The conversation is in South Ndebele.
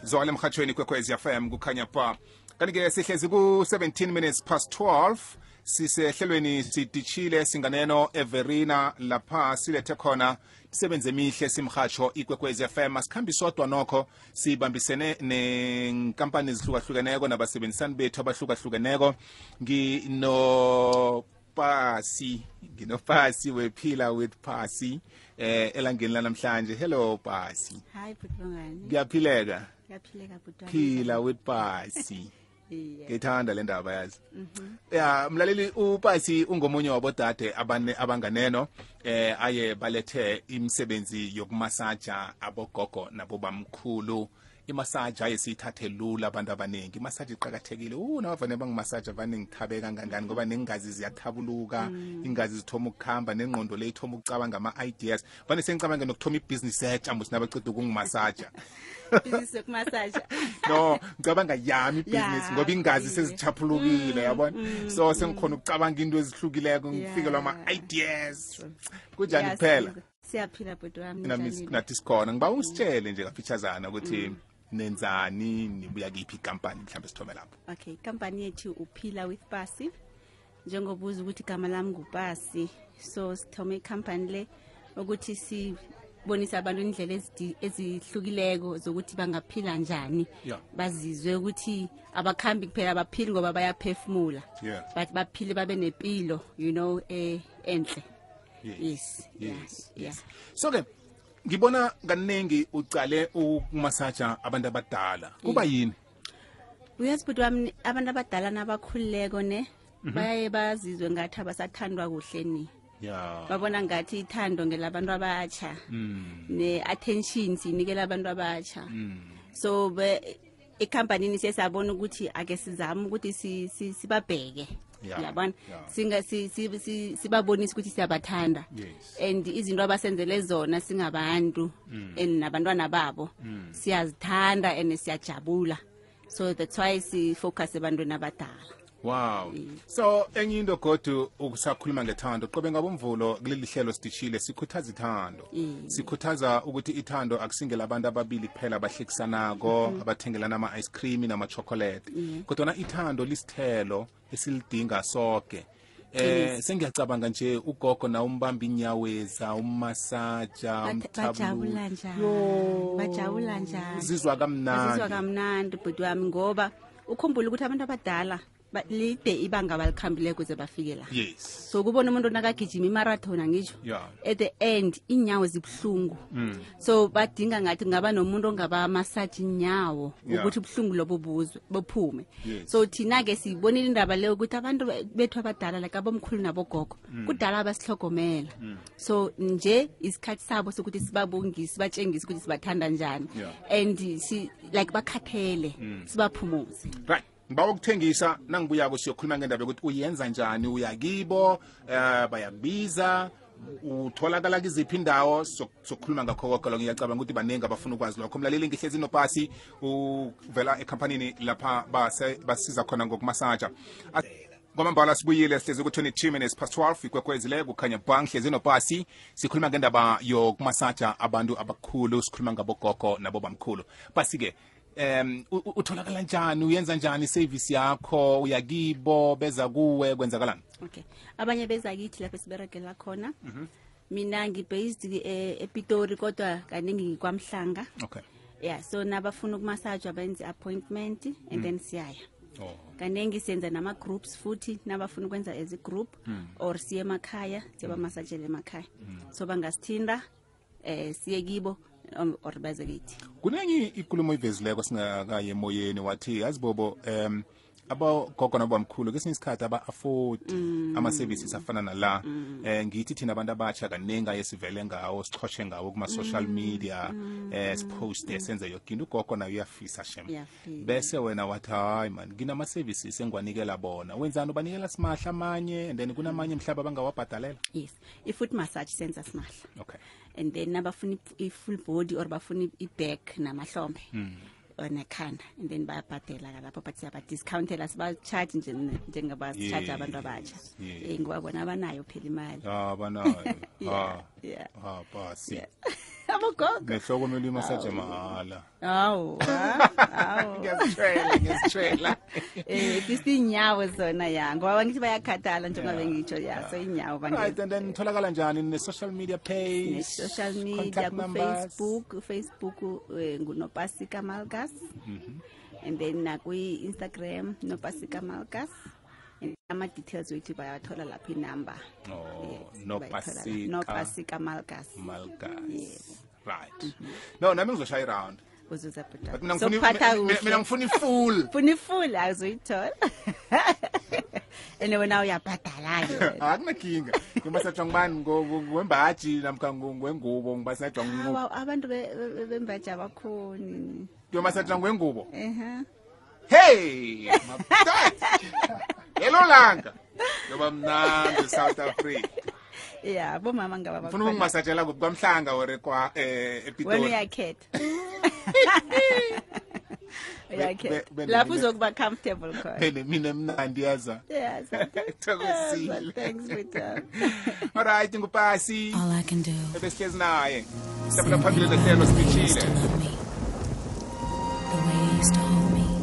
Zwala emhathweni kwekwezi FM kukhanya pa. Kanike sihlezi ku 17 minutes past 12 sisehlelweni sidishile singaneno Everina lapha silethe khona isebenze emihle simhatsho ikwekwezi FM asikhambi sodwa nokho sibambisene nenkampani ezihlukahlukene nabasebenzisani bethu abahlukahlukeneko nginopasi wephila with Pasi elangeni lanamhlanje. Hello Pasi. Hi Butwangani. Ngiyaphileka. Ngiyaphileka Butwangani. Phila with Pasi. Ngithanda le ndaba yazi. Ya mlaleli uPasi ungomunye wabodade abanganeno aye balethe imisebenzi yokumasaja abogogo nabobamkhulu. Imasaja ayesithathe lula abantu abaningi. Imasaja iqhakathekile. Nabavane bangimasaja vane ngithabeka kangangani ngoba nengazi ziyathabuluka, ingazi zithoma ukukhamba nengqondo le ithoma ukucabanga ama ideas. Vane sengicabanga nokuthoma ibusiness ethu musi nabaqeda ukungimasaja. Business yokumasaja. No, ngicabanga yami ibusiness ngoba ingazi sezichaphulukile yabona. So sengikhona ukucabanga into ezihlukileko ngifikelwa ama ideas. Kunjani kuphela? Siyaphila Butwami. Nathi sikhona. Ngiba usitshele nje kafitshazana ukuthi nenzani nibuya kiphi company mhlambe sithome lapho. Okay, company yethu uphila with Pasi. Njengobuza ukuthi igama lami nguPasi. So sithome company le ukuthi sibonisa abantu indlela ezihlukileko zokuthi bangaphila njani. Bazizwe ukuthi abakhambi kuphela abaphili ngoba bayaphefumula. But baphile babe nepilo, you know, enhle. Yes. So ke ngibona kaningi ucale ukumasaja abantu abadala. Kuba yini? Uyazi Butwami abantu abadala nabakhulileko ne baye bazizwe ngathi abasathandwa kuhle ni. Babona ngathi ithando ngelabantu abatsha. Ne attention sinikela abantu abatsha. So ecompany sesabona ukuthi ake sizama ukuthi sibabheke. Yabona sibabonisa ukuthi siyabathanda and izinto abasenzele zona singabantu nabantwana babo siyazithanda and siyajabula, so that's why si focus ebantwini abadala. Wow. So enye into godu ukusakhuluma ngethando qobe ngabomvulo kuleli hlelo sidishile sikhuthaza ithando. Sikhuthaza ukuthi ithando akusingela abantu ababili kuphela abahlekisanako abathengelana ama ice cream nama chocolate. Kodwa ithando lisithelo esilidinga sonke. Sengiyacabanga nje ugogo na umbamba inyaweza umasaja bajabula njani zizwa kamnandi Butwami ngoba ukhumbula ukuthi abantu abadala lide ibanga balikhambile kuze bafike la. So kubona umuntu nakagijima imarathon ngisho at the end inyawo zibhlungu. So badinga ngathi ngaba nomuntu ongaba massage inyawo ukuthi ubhlungu lobo bophume. So thina ke sibonile indaba leyo ukuthi abantu bethu abadala like abomkhulu nabogogo kudala abasihlogomela. So nje isikhathi sabo sokuthi sibabongise batshengise ukuthi sibathanda njani and like bakhathele sibaphumuze. Right. Ngiba ukuthengisa nangibuya siyokhuluma ngendaba ukuthi uyenza njani uyakibo bayabiza utholakala kiziphi indawo sokukhuluma ngakho konke lo ngiyacabanga ukuthi banengi abafuna ukwazi lokho. Mlaleli ngihlezi noPasi uvela ecompany lapha basiza khona ngokumasaja. Ngomambala sibuyile sihlezi ku 22 minutes past 12 ikwekwezile kukhanya bang hlezi noPasi sikhuluma ngendaba yokumasaja abantu abakhulu sikhuluma ngabogogo nabobamkhulu. Pasi ke utholakala njani uyenza njani service yakho uyakibo beza kuwe kwenzakalani? Okay, abanye beza kithi lapha siberegela khona. Mina ngibased ePitori kodwa kaningi ngikwamhlanga. Okay. Yeah, so nabafuna ukumassage abenze appointment and then siyaya. Kaningi senza nama groups futhi nabafuna ukwenza as a group or siye emakhaya siba massagele emakhaya. So bangasithinda siye kibo or baze kithi. Kunenye ikulumo ivezileko singakaye emoyeni wathi azibobo abogogo nabamkhulu kesinye isikhathi aba-afford ama-services afana nala. Ngithi thina abantu abatsha kaningi yesivele ngawo sichoshe ngawo kuma-social media siposte senze yonke into. Ugogo nayo uyafisa shem bese wena wathi hayi man nginama-services engiwanikela bona wenzani ubanikela simahla amanye and then kunamanye mhlaba abangawabhadalela? Yes, i-foot massage senza simahla. Okay. And then nabafuna i-full body or bafuna i-back namahlombe nekhanda and then bayabhadela lapho but siyaba-discountela siba-charge njengabasi-charge abantu abatsha. Ngibabona abanayo phela imali. Abanayo. Pasi. abogogo nehloko kumele imasaje mahhala hawu ngiyazitshela fisi inyawo zona ya ngoba ngithi bayakhathala njengoba bengitsho ya so inyawo right and then tholakala njani ne social media page social media ku Facebook nguNopasika Malgas and then Instagram Nopasika Malgas ama details wethu bayathola lapha inamba Nopasika Malgas yes right no nami ngizoshaya around uzuza but mina ngifuna full azoyithola ene wena uyabhadala ke akunakinga ngimasatsha ngibani ngwembaji namkha ngwengubo ngibasatsha ngubo abantu bembaji abakhoni ngimasatsha ngwengubo hey hello langa ngoba mnandi South Africa yeah bomama ngaba ngifuna ukungimasatshela kwamhlanga ore kwa ePitori wena uyakhetha lapho uzokuba comfortable khona mina emnandi yaza yes thokozile thanks Peter all right ngupasi all I can do ebesihlezi naye sifuna phambili lehlelo siphithile the way you used to hold me